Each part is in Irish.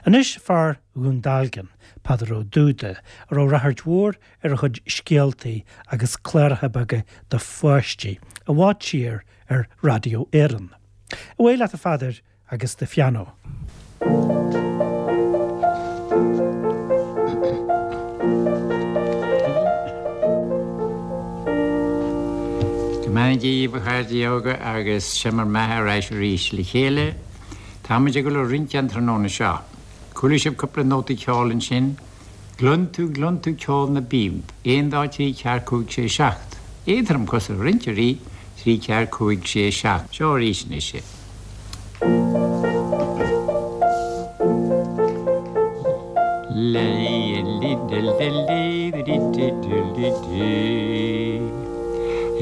Anois fear Dhún Dealgan, Peadar Ó Dúda, a raibh ráchairt mhór ar a chuid scéaltaí agus cláracha beaga do pháistí, i bhfad siar ar Raidió Éireann. Away leat a Pheadair agus do phianó. Go mbeannaí Dia dhaoibh a chairde óga agus seo mar mbeatha ar ais arís le chéile. Táimid ag dul a rince an tráthnóna seo. Chuala sibh cúpla nótaí ceoil ansin? Gcluin tú, gcluin tú ceol na bpíob, aon dá trí ceathair cúig sé seacht. Éadrom cosa rinceoirí, trí ceathair cúig sé seacht. Seo arís anois é.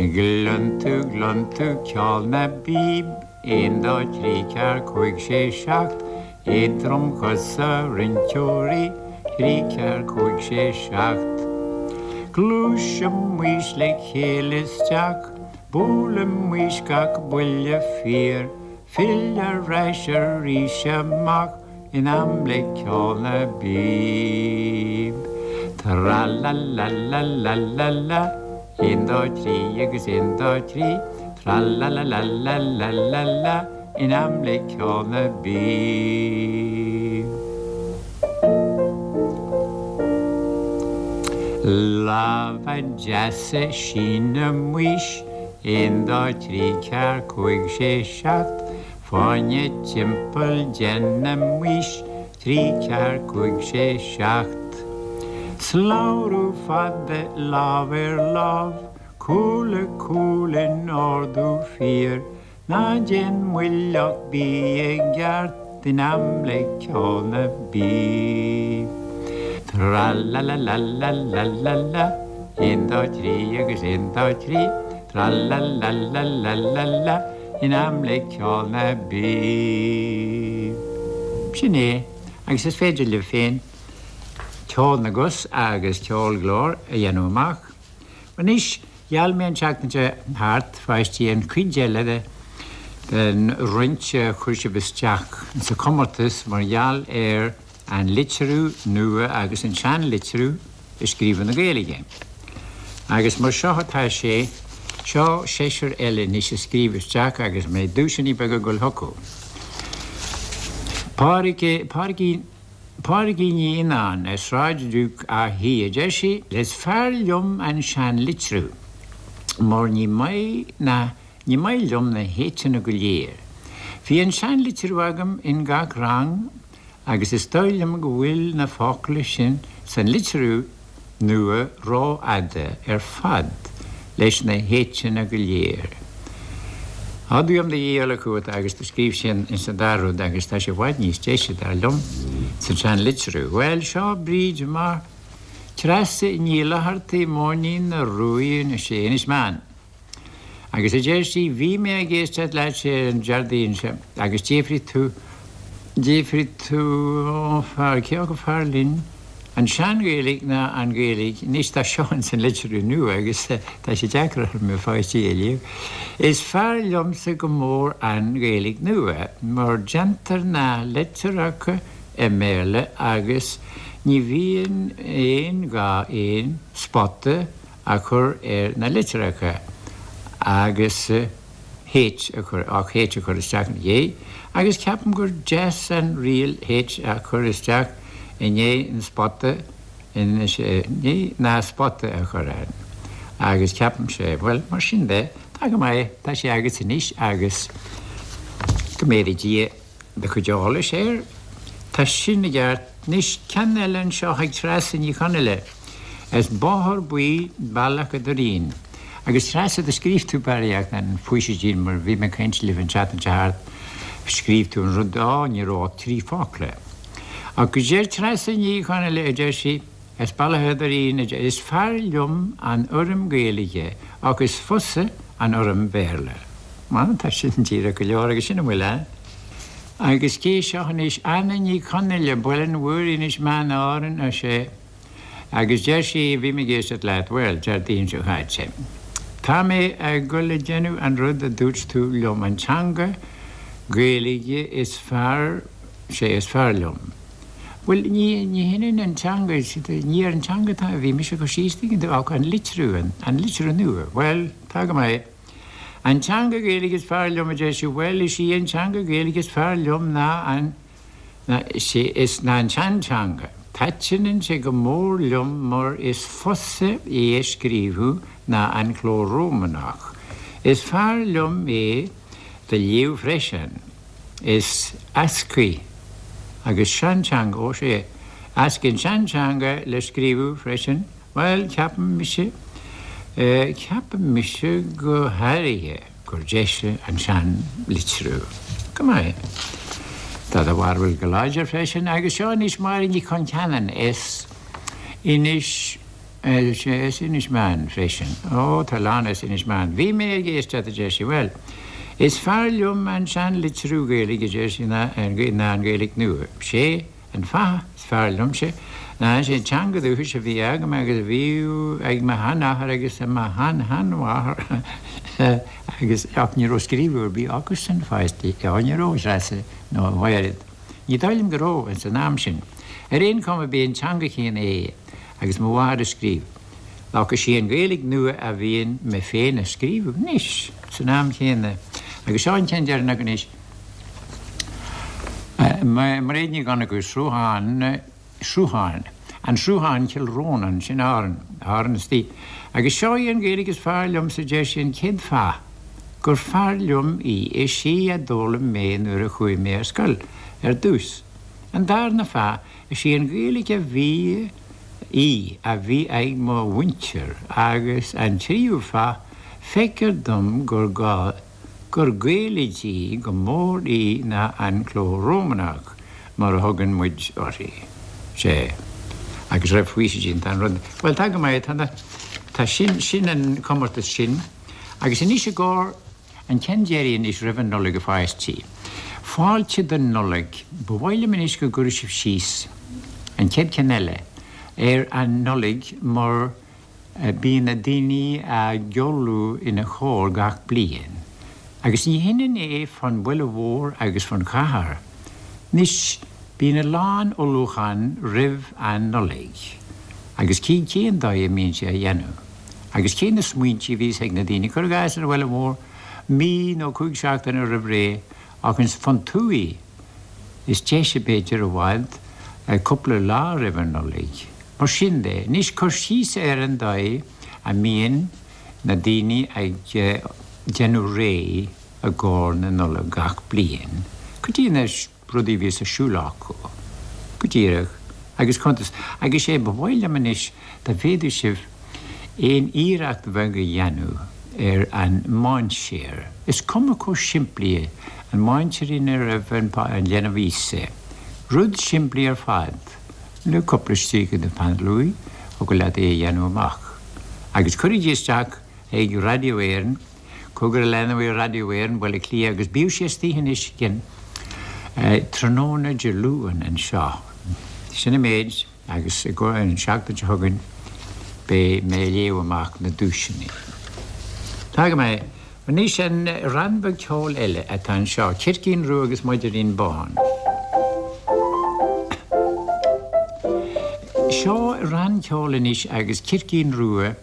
Gcluin tú, gcluin tú ceol na bpíob, aon dá trí ceathair cúig sé seacht. Éadromchosa rinceoirí, trí ceathair cúig sé seacht. Gluaisimis le chéile isteach, buailimis gach buille fíor, fill ar ais arís amach in am le ceol na bpíob. Tra-la-la-la-la-la-la, aon dá thrí agus aon dá thrí, tra-la-la-la-la-la-la-la. In am le ceol na bpíob. Lámha deasa sínimis, aon dá thrí ceathair cúig sé seacht, fáinne timpeall déanaimis, trí ceathair cúig sé seacht. Slabhrú fada lámh ar lámh, cúl le cúl in ordú fíor, Ná déan moill ach bí i gceart in am le ceol na bpíob. Tra-la-la-la-la-la-la-la, aon dá thrí agus aon dá thrí, tra-la-la-la-la-la-la, in am le ceol na bpíob. Sin é, agus is féidir libh féin ceol na gcos agus ceol glór a dhéanamh amach. Anois, Gheall mé an tseachtain seo thart, a pháistí, an chuid eile de den rince a chuir sibh isteach sa chomórtas mar gheall ar an litriú nua agus an seanlitriú i scríobh na Gaeilge. Agus mar seo atá sé, seo seisear eile anois a scríobh isteach agus mbeidh duaiseanna beaga ag dul chucu. Pádraig, Pádraigín. Pádraigín Ní Fhionnáin, ar Sráid Duke Átha Í, a deir sí, Is fearr liom an seanlitriú mar ní maith na, ní maith liom na h-eanna go léir. Bhí an seanlitriú agam in gach rang agus is dóigh liom go bhfuil na focla sin san litriú nua rófhada ar fad leis na h-eanna go léir. Á tuigim do dhíol chugat agus do scríobh sí ins an dara rud agus tá sé i bhfad níos deise dar liom san sean-litriú. Bhuel, seo Bríd mar Treasa Ní Fhlathartaigh Móinín na Ruaidhe sé Inis Meáin. Agus a deir sí, bhí mé ag éisteacht leat ar an Déardaoin seo agus d'fhiafraigh tú, d'fhiafraigh tú, ó fear, cé acu fearr linn, an sean-Ghaeilge ná an Ghaeilge, anois tá seo ins an litriú nua agus tá sé deacair orm a pháistí a léamh. Is fearr liomsa go mór an Ghaeilge nua mar déantar na litreacha i mBéarla agus ní bhíonn aon ghá aon spota a chur ar na litreacha agus H a chur, ach H a chur isteach ina dhiaidh, agus ceapaim gur deas an riail H a chur isteach i ndiaidh an spota, i ndiaidh na spota a chur ann. Agus ceapaimse, bhuel, mar sin de, tá go maith, tá sé agat anois agus go méadaí Dia. do chuid eolais air. Tá sin i gceart. Anois, ceann eile anseo ag Treasa Ní Chonaill as Bóthar Buí, Bealach a' Doirín. Agus Treasa, do scríobh tú barraíocht an faoisidín mar bhí mé ag caint libh an tseachtain seo thart, scríobh tú an rud, á, ní raibh ach trí focla. Ach deir Treasa Ní Chonaill, a deir sí, as Bealach a' Doirín, a deir, is fearr liom an fhoirm Gaeilge ach is fusa an fhoirm Bhéarla. Bhuel, tá sin díreach go leor agus sin a bhfuil ann. Agus cé seo anois? Anna Ní Chonaill, Baile an Mhúraigh, Inis Meáin, Árainn, ar sé. Agus deir sí, bhí mé ag éisteacht leat, bhuel, Déardaoin seo chaite. Tá mé ag dul a déanamh an rud a dúirt tú liom, an teanga Gaeilge is fearr, sé is fearr liom. Bhuel, ní, ní hionann an teanga, ní ar an teanga atá, a bhí mise ag cur síos, tuigeann tú, ach an litriú, an, an litriú nua. Bhuel, tá go maith. An teanga Gaeilge is fearr liom, a deir sí, bhuel, is í an teanga Gaeilge is fearr liom ná an, ná, sé, is ná an tseanteanga. Taitneann sé go mór liom mar is fusa é a scríobhadh ná an cló Rómánach. Is fearr liom é do léamh freisin. Is eascaí agus seanteanga, ó sea, eascaí an seanteanga le scríobhadh freisin, bhuel, ceapaim mise, ceapaim mise go háirithe gur deise an sean-litriú. Go maith. Tá do bharúil go láidir freisin, agus seo anois Máire Ní Choncheanainn as Inis, As Inis Meáin freisin. Ó, tá a lán as Inis Meáin. Bhí mé ag éisteacht, a deir sí. Bhuel, is fearr liom an sean-litriú Gaeilge, a deir sí, ná an Ghaeilge nua. Sé an fáth is fearr liomsa ná is é an teanga dúchais a bhí agam agus a bhí ag mo sheanathair agus mo shean-sheanmháthair agus, ach ní raibh scríobhadh ar bith acusan, a pháistí. Ó, ní raibh, a Threasa, nó a Mhairéad. Ní dóigh liom go raibh, ins an am sin. Ar aon chuma b'é an teanga chéanna é agus mo mháthair a scríobh. Ach is í an Ghaeilge nua a bhíonn mé féin a scríobhadh anois, san am chéanna. Agus seo an ceann deireanach anois. Mairéad Ní Dhonnchú, Sruthán, Sruthán, An Sruthán, Cill Rónáin, sin Árainn, Árainn istigh. Agus seo í an Ghaeilge is fearr liomsa, deir sí, an chéad fáth gur fearr liom í, is í a d'fhoghlaim mé nuair a chuaigh mé ar scoil ar dtús. An darna fáth, is í an Ghaeilge a bhí í a bhí ag mo mhuintir agus an tríú fáth, feictear dom gur gá, gur Gaelaidí go mór í ná an cló Rómánach, mar a thugann muid uirthi. Sea. Agus raibh faoisidín, tá an rud, bhuel, tá go maith, tá na, tá sin, sin an comórtas sin. Agus anois i gcomhair an ceann deiridh anois roimh an Nollaig a pháistí. Fáilte don Nollaig. Ba mhaith liom anois go gcuirfidh sibh síos, an chéad cheann eile, ar an Nollaig mar, Bíonn na daoine ag ullmhú ina chomhair gach bliain, agus ní hionann é fán bhaile mhór agus fán chathair. Anois, bíonn a lán ullmhúchán roimh an Nollaig, agus cén cén dóigh a mbíonn sé á dhéanamh, agus cé na smaointí a bhíos ag na daoine, cuir i gcás ar an bhaile mhór, mí nó 5 seachtaine roimh ré, ach ins fán tuaith, is deise b'fhéidir i bhfad, cúpla lá roimh an Nollaig. Mar sin de, anois cur síos ar an dóigh a mbíonn na daoine ag déanamh réidh i gcomhair na Nollag gach bliain, cad iad na rudaí a bhíos ar siúl acu, go díreach, agus cuntas. Agus sé ba mhaith liom anois dá bhféadfadh sibh aon iarracht bheag a dhéanamh ar an mainséar, is cuma chomh simplí é, an mainséar ina raibh an leanbh Íosa, rud simplí ar fad. Le cúpla stríoca de pheann luaidhe, thiocfadh leat é a dhéanamh amach. Agus cuirigí isteach ag Radio Éireann, Cogar a leanbh Radio Éireann, Baile Átha Cliath, agus bíodh sé istoíche anois again tráthnóna Dé Luain anseo. Sin an méid, agus an seachtain seo chugainn beidh mé ag léamh amach na duaiseanna. Tá go maith. Anois an rann beag ceoil eile atá anseo, Circín Rua agus Moidirín Bán. Seo rann ceoil anois agus Circín Rua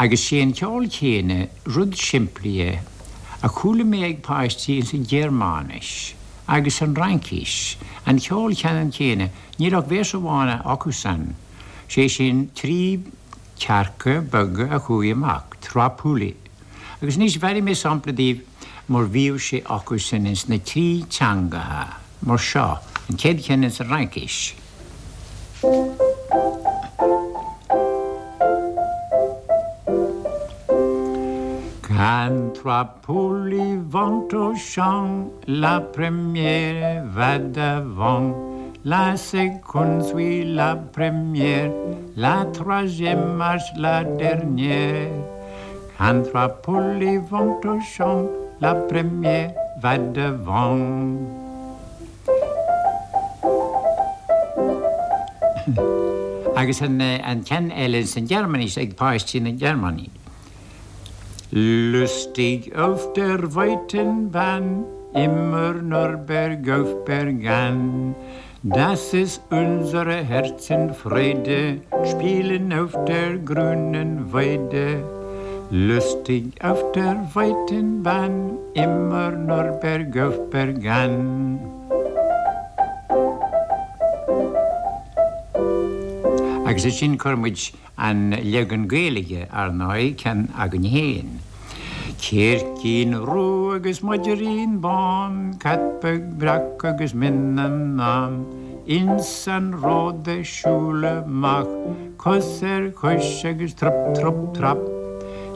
agus sé an ceol céanna, rud simplí é, a chuala mé ag páistí ins an Ghearmáinis agus an Fhraincis, an ceol ceannann céanna, níl ach véarsa amháin acusan, sé sin 3 cearca beaga a chuaigh amach, trois poulets. Agus anois bhearfaidh mé sampla daoibh mar bhíodh sé acusan ins na trí teangacha, mar seo, an chéad cheann ins an Fhraincis. Quand trois poules vont au champ, la première va devant, la seconde suit la première, la troisième marche la dernière. Quand trois poules vont au champ, la première va devant. Agus an ceann eile san Ghearmáinis ag páistí na Gearmáine. Lustig auf der weiten Bahn, immer nur bergauf, bergan. Das ist unsere Herzen Freude, spielen auf der grünen Weide. Lustig auf der weiten Bahn, immer nur bergauf bergan. Agus ansin chuir muid an leagan Gaeilge, ar ndóigh, ceann againn féin. Circín rua agus maidrín bán, cat beag breac agus mionnán, ins an ród ag siúl amach, cos ar chois agus trup trup trap.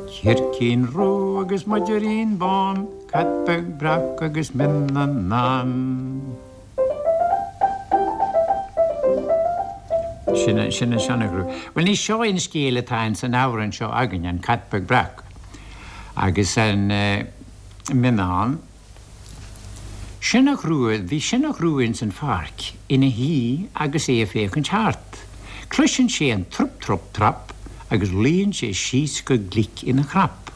Circín rua agus maidrín bán, cat beag breac agus mionnán. Sin an Sionnach Rua. Bhuel, ní seo an scéal atá ins an amhrán seo againn, an Cat Beag Breac agus an Mionnán. Sionnach Rua, bhí Sionnach Rua ins an pháirc ina shuí agus é ag féachaint thart. Cloiseann sé an trup trup trap agus luíonn sé síos go glic ina chrap.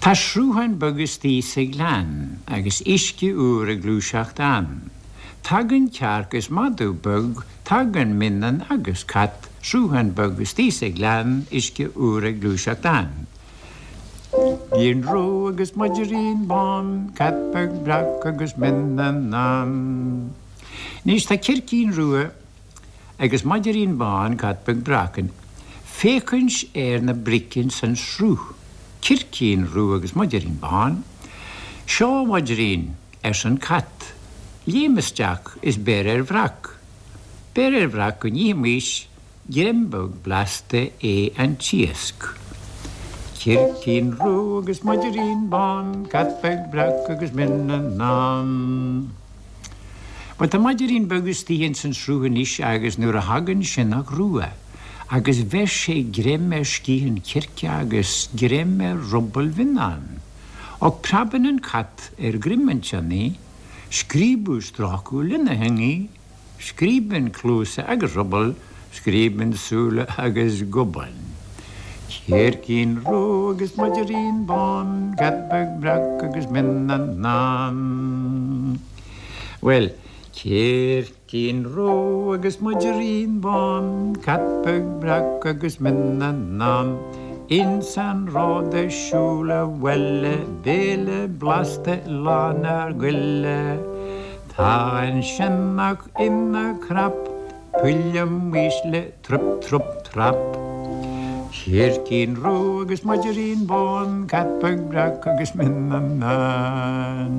Tá sruthán beag istigh sa ghleann agus uisce úr ag gluaiseacht ann. Tagann cearc is madadh beag, tagann mionnán agus cat, sruthán beag istigh sa ghleann, uisce úr ag gluaiseacht ann. Circín rua agus maidrín bán, cat beag breac agus mionnán. Anois tá circín rua agus maidrín bán, cat beag breac, ag féachaint ar na bric ins an sruth, circín rua agus maidrín bán. Seo, a mhaidrín, arsa an cat, léim isteach is beir ar bhreac. Beir ar bhreac go n-ithimís greim beag blasta é an t-iasc. Circín rua agus maidrín bán, cat beag breac agus mionnán. Bhuel, tá maidrín beag istigh ins an sruth anois agus nuair a thagann sionnach rua agus bheir sé greim ar sciath an chirce agus greim ar ruball mhionnáin. Och preabann an cat ar dhroim an tsionnaigh, scríobadh strácadh lena theangaidh, Scríobann cluasa agus ruball, scríobann súile agus gobán. Circín rua agus maidrín bán, cat beag breac agus mionnán. Bhuel, circín rua agus maidrín bán, cat beag breac agus mionnán. Ins an ród ag siúl abhaile, béile blasta lán ár goile. Tá an sionnach ina chrap, buailimis le trup trup trap. Circín rua agus maidrín bán, cat beag breac agus mionnán.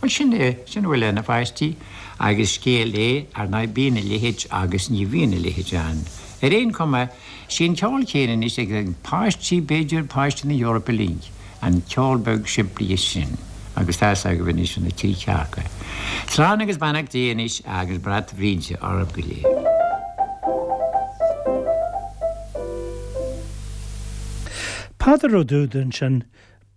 Bhuel, sin é, sin a bhfuil ann, a pháistí, agus scéal é, ar ndóigh, bíonn a leithéid agus ní bhíonn a leithéid ann. Ar aon chuma, sé an ceol céanna anois ag páistí, b'fhéidir, páistí na hEorpa uilig. An ceol beag simplí sin, agus tá's agaibh anois na trí chearca. Slán agus beannacht Dé anois agus brat Bhríde oraibh go léir. Peadar Ó Dúda ansin,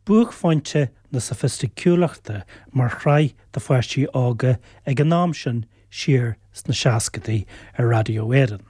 buaicphointe na sofaisticiúlachta mar shraith do pháistí óga ag an am sin siar sna seascadaí ar Raidió Éireann.